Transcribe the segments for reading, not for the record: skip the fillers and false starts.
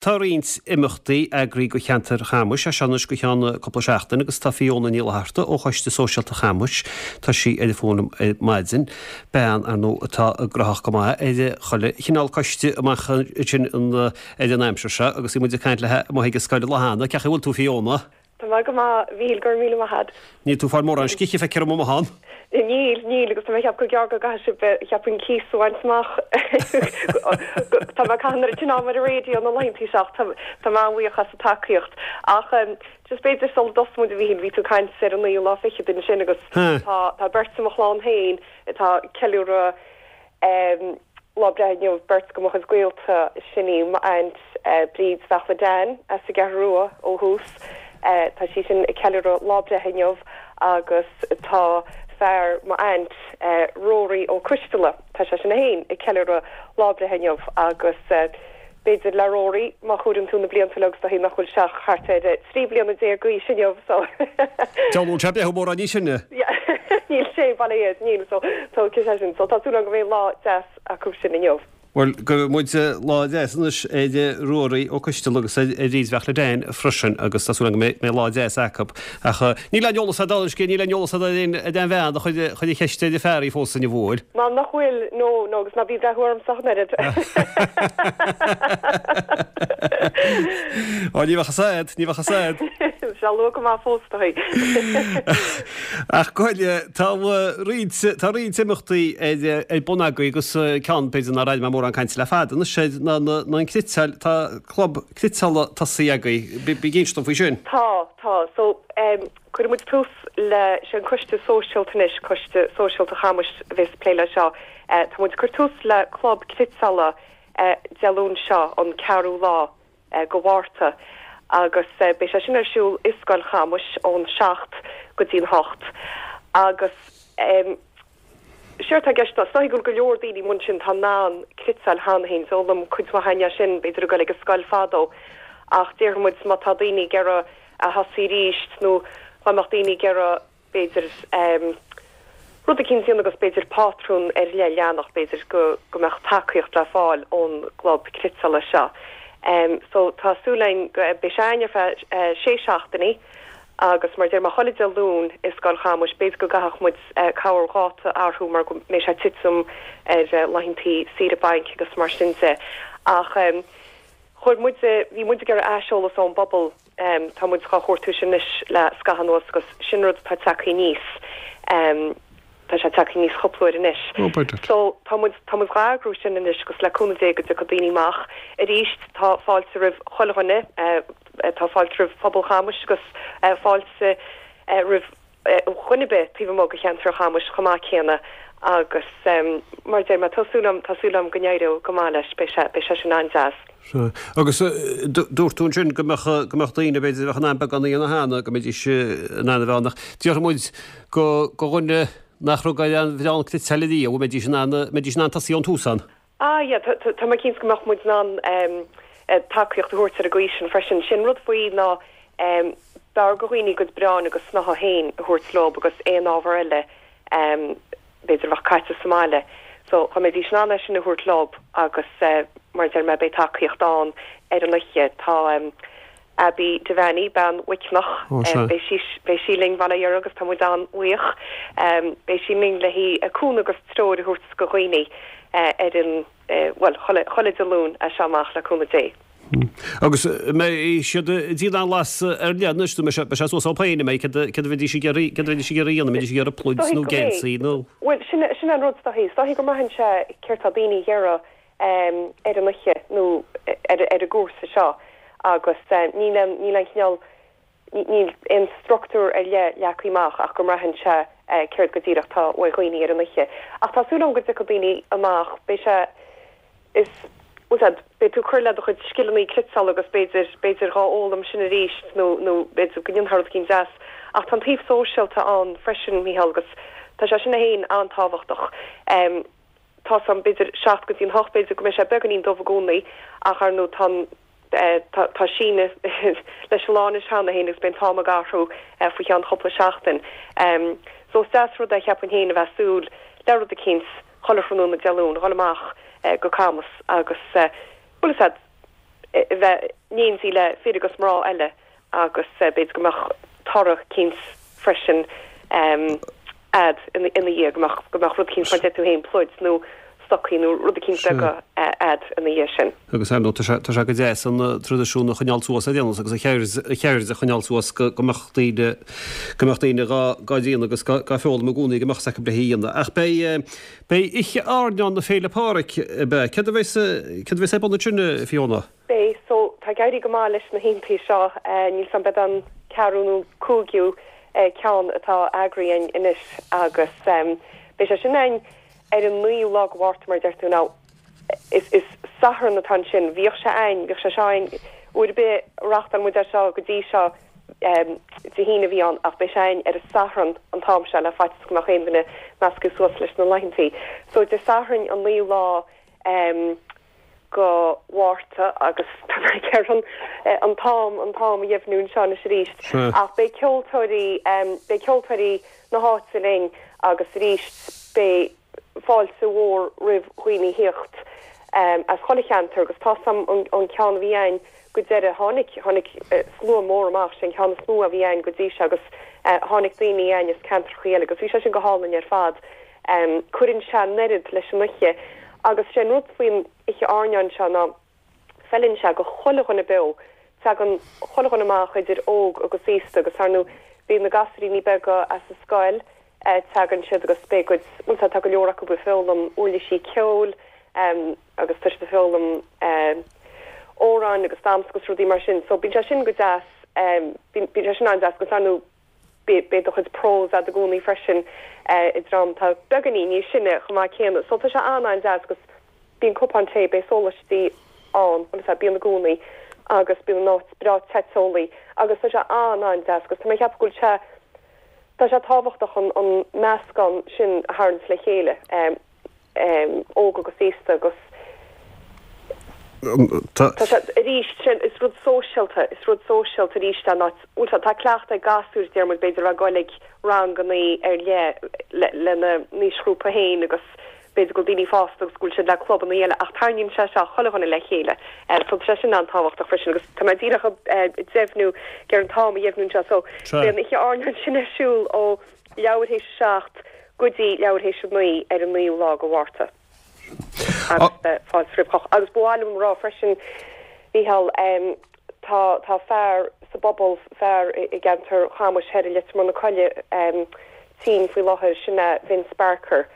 Tá roinnt imeachtaí eagraithe do cheantar Chamuis as seo anois go ceann cúpla seachtain agus tá Fiona Ní Fhlatharta ó Choiste Sóisialta Chamuis, tá sí ar an bhfón liom ar maidin, bean, ar ndóigh, atá gnóthach go maith ar chuile chineál coiste amach ansin ar an aimsir seo agus bhí muid ag caint léi amuigh ag an scoil an lá cheana. Cén chaoi a bhfuil tú Fiona? Tá mé go maith, a Mhíchíl, go raibh míle maith a'd. Níl tú ag fáil mórán scíthe, feictear dom amuigh ann. Níl, níl, agus tá mé ag ceapadh gur gearr go gcaithfidh sibh, cheapfainn, cíos a bhaint amach. Tá mé ag caitheamh an oiread sin ama ar an raidió na laethantaí seo ach tá, tá mé an-bhuíoch as an tacaíocht. Ach just b'fhéidir sula dtosóidh muid, a Mhíchíl, bhí tú ag caint ar an naoú lá fichead ansin agus tá, tá beirt i mo chlann féin atá ag ceiliúradh Lá breithe inniu, beirt de mo chuid gaolta, sin í m'aint Bríd Bheachla Dan as an gCeathrú Rua ó thús, tá sí sin ag ceiliúradh lá breithe inniu agus tá fear m'aint Rory Ó Coisteala, tá sé sin féin ag ceiliúradh lá breithe inniu agus b'fhéidir le Rory, má chomhaireann tú na blianta leo agus is dóichí nach bhfuil sé ach thart ar 13 bliana d'aois inniu so. Deabhal bhfuil sé ag breathnú mórán níos sine. Níl sé, bail ó Dhia air, níl, so tógfaidh sé sin. So tá súil agam go mbeidh lá deas acu sin inniu. Bhuel, guíonn muid lá deas anois ar Ruairí Ó Coisteala agus ar Bhríd Bheachla Dan freisin agus tá súil agam go mbeidh lá deas acu. Ach níl aon eolas a'd anois, níl aon eolas a'd ar aon bhean a chuir an cheist ar an fear í phósadh inniu, an bhfuil? Ná nach bhfuil, no, no, agus ná bí ag breathnú ormsa ach an oiread. Ó, ní bheadh fhios a'd, ní bheadh fhios a'd. Sé luath go maith fós, is dóichí. Ach go háirithe, tá roinnt, tá roinnt imeachtaí ar, ar bun agaibh agus ceann, b'fhéidir nár airigh mé mórán cainte le fada anois air, ná na, ná an cniotáil, tá club cniotála tosaithe agaibh. Bí, bí ag inse dom faoi sin. Tá, tá. So, cuirfidh muid tús le, sé an Coiste Sóisialta anois, Coiste Sóisialta Chamuis a bheas ag plé le seo. Tá muid ag cur tús le club cniotála Dé Luain seo, an ceathrú lá. go Mhárta agus beidh sé sin ar siúl i Scoil Chamuis ón 7 go dtí'n 8 agus séard tá i gceist ná, is dóichí go bhfuil go leor daoine amuigh ansin atá in ann cniotáil cheana féin, d'fhoghlaim cuid mhaith againn é sin b'fhéidir ag dul ag an scoil fadó ach déarfaidh muid má tá daoine ag iarraidh a thosaí arís nó dá mbeadh daoine ag iarraidh b'fhéidir, rud eicínt a dhéanamh agus b'fhéidir pátrún ar leith a leanacht, b'fhéidir go go mbeadh tacaíocht le fáil ón gclub cniotála seo. So tá súil againn go beidh sé againn ar feadh sé seachtainí agus mar a deir mé chuile Dé Luain i Scoil Chamuis, b'fhéidir go gcaithfeadh muid corr dháta a athrú mar go mbeidh sé ag titim ar laethantaí saoire bainc agus mar sin de. Ach chuir muid, bhí muid ag iarraidh aiseolas ón bpobal, Tá muid dhá chuartú sin anois le scaitheamh anuas agus sin rud atá tagtha aníos. Tá sé tagtha aníos cúpla uair anois. So tá muid, tá muid dhá eagrú sin anois agus le cúnamh Dé go dtiocfaidh daoine amach. Arís tá fáilte roimh chuile dhuine, tá fáilte roimh phobal Chamuis agus fáilte roimh dhuine ar bith taobh amuigh de cheantar Chamuis chomh maith céanna agus mar a deir mé, tá súil agam, tá súil agam go n-éireoidh go maith leis, beidh sé, beidh sé sin an-deas. Sea. Agus dúirt tú ansin go mbeadh, go mbeadh daoine, b'fhéidir, a bheadh in ann beagán a dhéanamh cheana, go mbeidís in ann a bheith ann ach déarfaidh muid go, go dhuine nach raibh ag aon bhreán cniotáil ariamh, an mbeidís in ann, mbeidís in ann tosaí ón tús ann? Ah yeah, tá, tá mé cinnte go mbeadh muid in ann tacaíocht a thabhairt ar an gcaoi sin freisin. Sin rud faoi ná b'fhearr go dhaoine a gcuid bráin agus snáithe féin a thabhairt leob agus aon ábhar eile b'fhéidir a bheadh caite sa mbaile. So dá mbeidís in ann é sin a thabhairt leob agus mar a deir mé beidh tacaíocht ann ar an oíche. Tá Abbie Devaney, bean Mhuiceanach, beidh sí, beidh sí linn bail ó Dhia uirthi agus tá muid an-bhuíoch. Beidh sí linn le haghaidh cúnamh agus treoir a thabhairt go dhaoine ar an, bhuel, chuile, chuile Dé Luain as seo amach le cúnamh Dé. Agus an mbeidh siad ag déanamh aon blas ar leith anois, nó beidh sé suas orthu féin, an mbeidh, céard a bheidís ag iarraidh, céard a bheidís ag iarraidh a dhéanamh, an mbeidís ag iarraidh pluid nó geansaí nó? Bhuel, sin, sin an rud is dóichí. Is dóichí go mbraitheann sé céard tá daoine ag iarraidh ar an oíche nó ar an gcúrsa seo agus níl aon, níl aon chineál, níl aon structúr ar leith leagtha amach ach go mbraitheann sé céard go díreach tá uaidh dhaoine ar an oíche. Ach tá súil agam go dtiocfaidh daoine amach, beidh sé, is, bhfuil a fhios a'd, beidh tú ag cur le do chuid scileanna cniotála agus b'fhéidir, b'fhéidir dhá fhoghlaim sin arís nó, nó b'fhéidir go ndéanfá rud eicínt deas. Ach tá an taobh sóisialta ann freisin, Mícheál, agus tá sé sin féin an-tábhachtach. Tá's a'm, b'fhéidir 7 go dtí an 8, b'fhéidir go mbeidh sé beagáinín dubh i gcónaí ach ar ndóigh tá an, tá, tá síneadh leis an lá anois cheana féin agus beidh an t-am ag athrú faoi cheann chúpla seachtain. So is deas rud é cheapfainn féin a bheith ag súil le rud eicínt chuile thráthnóna Dé Luain, dhul amach go Camus agus, bhfuil fhios a'd. bheith in éindí le fir agus mná eile agus b'fhéidir go mbeadh toradh eicínt freisin a'd ina dhiaidh, go mbeadh, go mbeadh rud eicínt mar deir tú féin, pluid nó stocaí nó rud eicínt beag a'd ina dhiaidh sin. Agus ar ndóigh tá sé, tá sé go deas an traidisiún a choinneáil suas ar aon nós agus an cheird, an cheird a choinneáil suas go, go mbeadh daoine, go mbeadh daoine dhá, dhá déanamh agus dhá, dhá foghlaim i gcónaí go mbeadh 's acu le hé a dhéanamh. Ach beidh, beidh Oíche Airneáin na Féile Pádraig, ab ea? Céard a bheas, céard a bheas ar bun ansin, a Fiona? Beidh, so tá ag éirí go maith leis na hoícheantaí seo, níl 's a'm b'é an ceathrú nó cúigiú ceann atá eagraithe a'inn anois agus beidh sé sin a'inn ar an naoú lá go Mhárta mar a deir tú now is is Satharn atá ansin, bhíodh sé a'inn, bhíodh sé seo a'inn uair ar bith a reáchtáil muid é seo go dtí seo Dé hAoine a bhí ann ach beidh sé a'inn ar an Satharn an t-am seo le faitíos go mbeadh aon duine measctha suas leis na laethantaí. So Dé Sathairn an naoú lá go Mhárta agus tá mé ag iarraidh an t-am, an t-am a dheimhniú anseo anois arís. Ach beidh ceoltóirí, beidh ceoltóirí na háite linn agus arís beidh fáilte mhór roimh dhaoine thíocht as chuile cheantar agus tá's a'm an ceann a bhí a'inn go deireadh, tháinig, tháinig slua mór amach, sé an ceann is mó a bhí a'inn go dtí seo agus tháinig daoine a'inn as ceantrachaí eile agus bhí sé sin go hálainn ar fad. Cuireann sé an oiread leis an oíche agus sé an rud faoin oíche airneáin seo ná feileann sé go chuile dhuine beo. Tagann chuile dhuine amach idir óg agus aosta agus ar ndóigh bíonn na gasúiríní beaga as an scoil, tagann siad agus beidh a gcuid, bhuel tá, tá go leor acu ag foghlaim uirlisí ceoil agus tá siad ag foghlaim amhráin agus damhsa agus rudaí mar sin so bíonn sé sin go deas, bíonn sé sin an-deas agus ar ndóigh Beidh do chuid prose a'd i gcónaí freisin i ndream atá beagáinín níos sine chomh maith céanna. So tá sé an-an-deas agus bíonn cupán tae, beidh sólaistí ann, bhuel is ea, bíonn i gcónaí agus bíonn an áit breá te teolaí agus tá sé an-an-deas agus tá mé ag ceapadh go bhfuil sé, tá sé tábhachtach an an meascán sin a tharraingt le chéile. óg agus aosta agus tá sé arís sin is rud sóisialta is rud sóisialta arís é ná bhuel tá cleachtadh ag gasúir deir muid b'fhéidir a bheith ag goil ag rangannaí ar leith lena n-aoisghrúpa féin agus b'fhéidir go bhfuil daoine fásta agus go bhfuil siad le clubannaí eile ach tarraingíonn sé seo chuile dhuine le chéile so tá sé sin an-tábhachtach freisin agus tá mé díreach ag deimhniú ag iarraidh an t-am a dheimhniú anseo so beidh an oíche airneáin sin ar siúl ó leathuair théis a 7 go dtí leathuair théis a 9 ar an naoú lá go Mhárta. Agus fáilte roimh chách. Agus ba mhaith liom a rá freisin, Mícheál, tá, tá fear sa bpobal, fear i gceantar Chamuis thoir i Leitir Móir na Coille, tinn faoi láthair, sin é Vince Barker.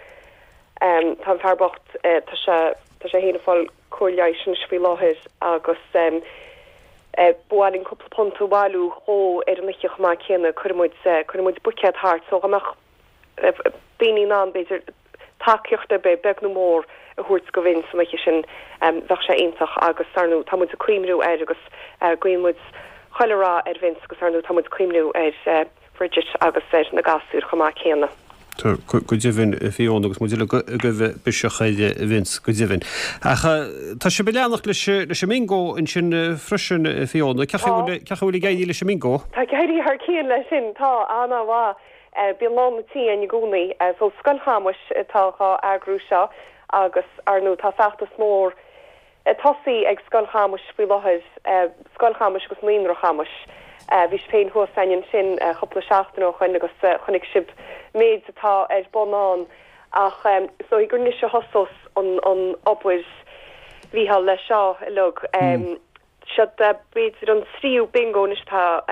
Tá an fear bocht, tá sé, tá sé féin ag fáil cóir leighis anois faoi láthair agus ba mhaith linn cúpla punt a bhailiú dhó ar an oíche chomh maith céanna. Cuirfidh muid, cuirfidh muid buicéad thart so dá mbeadh daoine in ann b'fhéidir tacaíocht ar bith, beag nó mór, a thabhairt go Vince an oíche sin bheadh sé iontach agus ar ndóigh tá muid ag cuimhniú air agus guíonn muid chuile rath ar Vince agus ar ndóigh tá muid ag cuimhniú ar Bridget agus ar na gasúir chomh maith céanna. Tá, go deimhin, a Fiona, agus muid uilig ag gabháil biseach ar Vince, go deimhin. Ach tá sibh ag leanacht leis an mbingo ansin freisin, a Fiona. Cén chaoi a bhfuil ag éirí leis an mbingo? Tá ag éirí thar cionn leis sin, tá, an-mhaith. Bíonn lán an tí againn i gcónaí. So Scoil Chamuis atá dhá eagrú seo agus, ar ndóigh, tá feachtas mór ag tosaí ag Scoil Chamuis faoi láthair, Scoil Chamuis agus Naíonra Chamuis. Bhí sibh féin thuas againn ansin cúpla seachtain ó shoin agus chonaic sibh méid atá ar bun ann. Ach is dóigh gur anois a thosós an obair, Mhícheál, leis seo uilig. Seo b'fhéidir an tríú bingo anois atá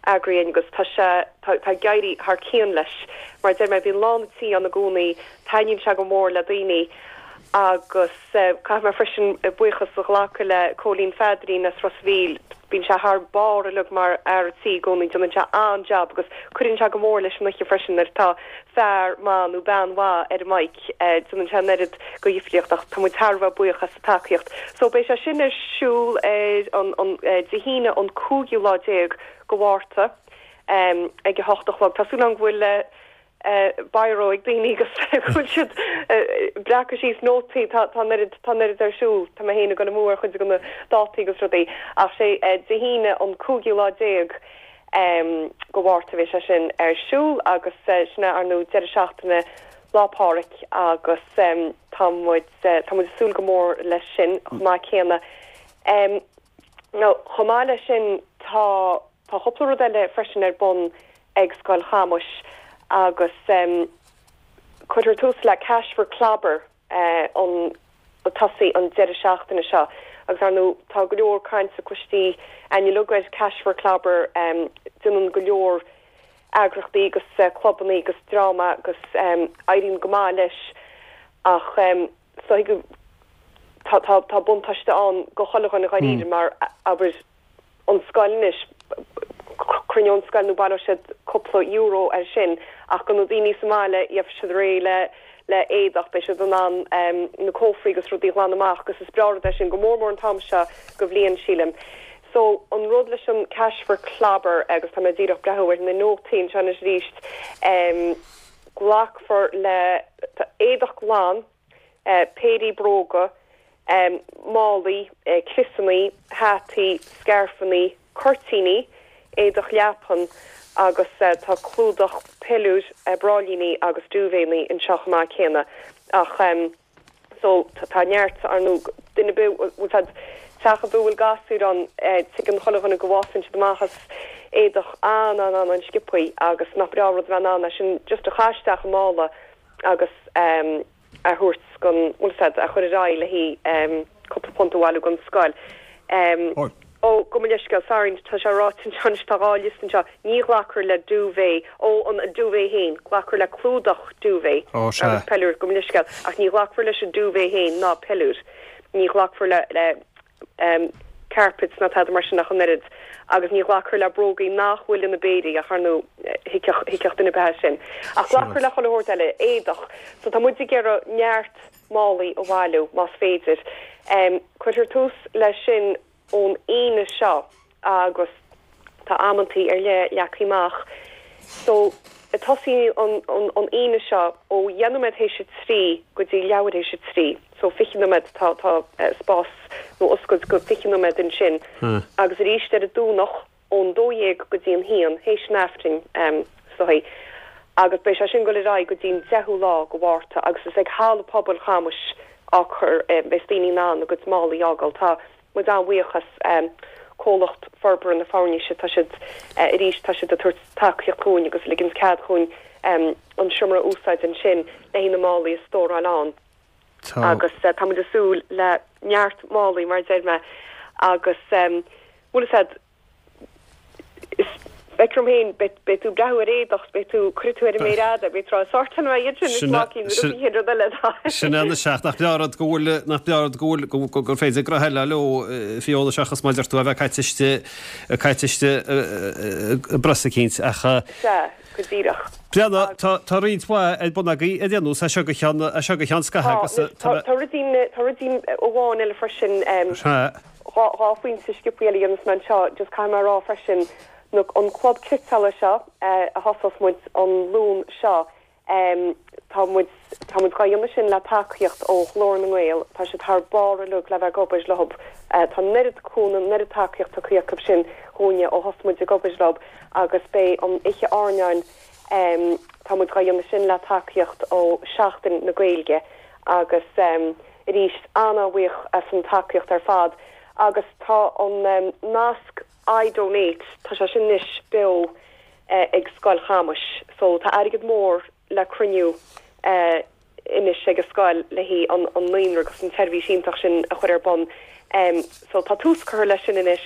eagraithe againn agus tá sé, tá ag éirí thar cionn leis. Mar a deir mé, bíonn lán an tí ann i gcónaí, taitníonn sé go mór le daoine agus caithfidh mé freisin buíochas a ghlacadh le Cóilín Pheadairín as Ros a' Mhíl, bíonn sé thar barr uilig mar fhear a' tí i gcónaí, déanann sé an-jab agus cuireann sé go mór leis an oíche freisin nuair atá fear maith nó bean mhaith ar an mic, déanann sé an oiread go dhifríocht ach tá muid thar a bheith buíoch as. tacaíocht. So beidh sé sin ar siúl ar an an Dé hAoine an cúigiú lá déag go Mhárta ag a hocht a chlog. Tá súil agam go bhfuil biro ag daoine agus go bhfuil siad ag breacadh síos nótaí. Tá tá an oiread tá an oiread ar siúl. Tá mé féin ag dul amú ar chuid de na dátaí agus rudaí. Ach sé Dé hAoine an cúigiú lá déag go Mhárta a bheidh sé sin ar siúl agus sin é ar ndóigh deireadh seachtaine Lá Pádraig agus tá muid tá muid ag súil go mór leis sin chomh maith céanna. Now, chomh maith leis sin, tá tá cúpla rud eile freisin ar bun ag Scoil Chamuis agus cuirfear tús le Cash for Clobber an ag tosaí an deireadh seachtaine seo agus ar ndóigh tá go leor cainte cloiste againn uilig ar Cash for Clobber, déanann go leor eagrachtaí agus clubannaí agus dream agus éiríonn go maith leis ach is dóigh go tá tá tá buntáiste ann go chuile dhuine dháiríre mar abair an scoil anois cruinneoidh an scoil nó baileoidh siad cúpla euro ar sin ach go na daoine sa mbaile gheobhaidh siad réidh le le éadach beidh siad in ann na cófraí agus rudaí a ghlanadh amach agus is breá rud é sin go mór mór an t-am seo go bhliain sílim. So, an rud leis an Cash for Clobber, agus tá mé díreach breathnú ar na nótaí anseo anois arís, glacfar le éadach glan, péirí bróga, málaí, criosannaí, hataí, scairfeannaí, cuirtíní, éadach leapan agus tá clúdach peiliúir, bráillíní agus duvetannaí anseo chomh maith céanna. Ach. So, tá neart, ar ndóigh, duine ar bith, bhfuil fhios a'd, teach ar bith a bhfuil gasúir ann, tuigeann chuile dhuine go bhfásann siad amach as éadach an-an-an-an-sciobthaí agus nach breá an rud a bheith in ann é sin just a chaith isteach i mála agus a thabhairt gon, bhfuil fhios a'd, a chur ar aghaidh le haghaidh cúpla punt a bhailiú gon scoil. Ó, gabh mo leithscéal, sorry, tá sé ráite anseo anois, tá 2 liosta anseo, ní ghlacfar le duvet, ó, an duvet féin, glacfar le clúdach duvet agus peiliúr, gabh mo leithscéal, ach ní ghlacfar leis an duvet féin ná peiliúr, ní ghlacfar le, le carpets ná tada mar sin ach an oiread, agus ní ghlacfar le brógaí nach bhfuil ina bpéirí, ach ar ndóigh, thuigfeadh, thuigfeadh duine ar bith é sin. Ach glacfar le chuile shórt eile, éadach, so tá muid ag iarraidh neart málaí a bhailiú, más féidir. Cuirfear tús leis sin ón Aoine seo agus tá amantaí ar leith leagtha amach. So, tosaíonn an an Aoine seo ó dheich nóiméad théis a 3 go dtí leathuair théis a 3. So 20 nóiméad, tá tá spás nó oscailt go 20 nóiméad ansin. Agus arís ar an Domhnach ón 12 go dtí an haon, théis an Aifrinn, is dóigh, agus beidh sé sin ag dul ar aghaidh go dtí an 10ú lá go Mhárta agus is ag Halla Pobail Chamuis á cur, beidh daoine in ann a gcuid málaí a fhágáil. Tá muid an-bhuíoch as Comhlacht Forbartha na Foirnise, tá siad, arís, tá siad ag tabhairt tacaíocht dhúinn agus ag ligint cead dhúinn an seomra a úsáid ansin le haghaidh na málaí a stóráil ann. Agus tá muid ag súil le neart málaí, mar a deir mé, agus bhfuil fhios a'd, is feictear dom féin, beidh tú ag breathnú ar éadach, beidh tú, cuirfidh tú ar an méar fhada, beidh tú ag rá, sórtáil mé iad sin, is lá cinn, rud éigin, rud eile. Sin é anois ach nach breá rud go bhfuil, nach breá rud go bhfuil, gur féidir gnoithe eile leo, Fiona, seachas mar a deir tú a bheith caite istigh, caite istigh i bpress eicínt ach. Sea. Go díreach. Breathnaigh, tá, tá roinnt mhaith ar bun agaibh ar aon nós, as seo go ceann, as seo go ceann scaithimh agus tá, tá ruidín, tá ruidín amháin eile freisin, Sea. 2 phointe sciobthaí eile a dhéanfas mé anseo, just caithfidh mé a rá freisin, na, an club cniotála seo a thosós muid an Luan seo, Tá muid, tá muid dhá dhéanamh sin le tacaíocht ó Ghlór na nGael, tá siad thar barr uilig le bheith ag obair leo. Tá an oiread cúnamh, an oiread tacaíocht tugtha acu sin dhúinne ó thosaigh muid ag obair leo agus beidh an oíche airneáin, tá muid dhá dhéanamh sin le tacaíocht ó Seachtain na Gaeilge agus arís an-an-bhuíoch as an tacaíocht ar fad agus tá an nasc iDonate, tá sé sin anois beo ag Scoil Chamuis. So tá airgead mór le cruinniú anois ag an scoil le haghaidh an naíonra agus an tseirbhís iontach sin a chur ar bun. So tá tús curtha leis sin anois.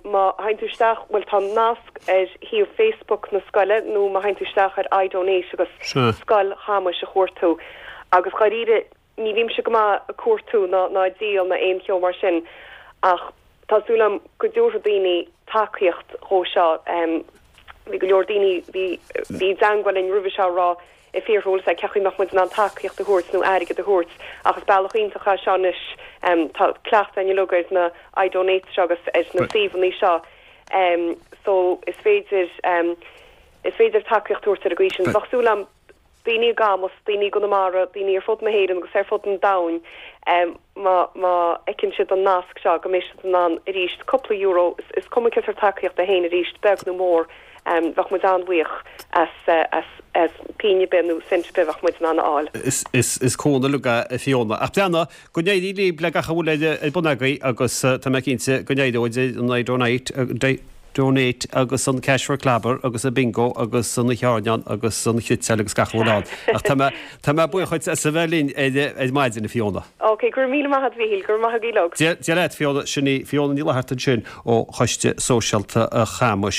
Má théann tú isteach, bhuel tá nasc ar shuíomh Facebook na scoile nó má théann tú isteach ar iDonate agus Scoil Chamuis a chuartú. Agus dháiríre, Ní bhímse go maith ag cuartú ná ná ag díol ná aon cheo mar sin ach tá súil agam go dtabharfaidh daoine tacaíocht dhó seo. Bhí go leor daoine bhí bhí i dteangmháil linn roimhe seo ag rá ag fiafraí bhfuil a fhios a'd cén chaoi mbeadh muid in ann tacaíocht a thabhairt nó airgead a thabhairt ach is bealach iontach é seo anois. Tá cleachtadh againn uilig ar na iDonates seo agus ar na suíomhanna seo so is féidir is féidir tacaíocht a thabhairt ar an gcaoi sin. Bheadh súil agam daoine i gCamus, daoine i gConamara, daoine ar fud na hÉireann agus ar fud an domhain, má má fheiceann siad an nasc seo, go mbeidh siad in ann arís cúpla euro, is cuma cén sórt tacaíocht é féin arís, beag nó mór. Bheadh muid an-bhuíoch as as pingin ar bith nó cent ar bith bheadh muid in ann a fháil. Is cúnamh uilig é a Fiona. Ach breathnaigh, go n-éirí libh le gach a bhfuil ar bun agaibh agus tá mé cinnte go n-éireoidh an iDonate Donate agus an Cash for Clobber agus an Bingo agus an Oíche Airneáin agus an Chniotáil agus gach a bhfuil ann. Ach tá mé tá mé buíoch dhuit as a bheith linn ar ar maidin a Fiona. Ok, go raibh míle maith agat a Mhíchíl, go raibh maith agaibh uilig. Dia leat Fiona, sin í Fiona Ní Fhlatharta ansin ó Choiste Sóisialta Chamais.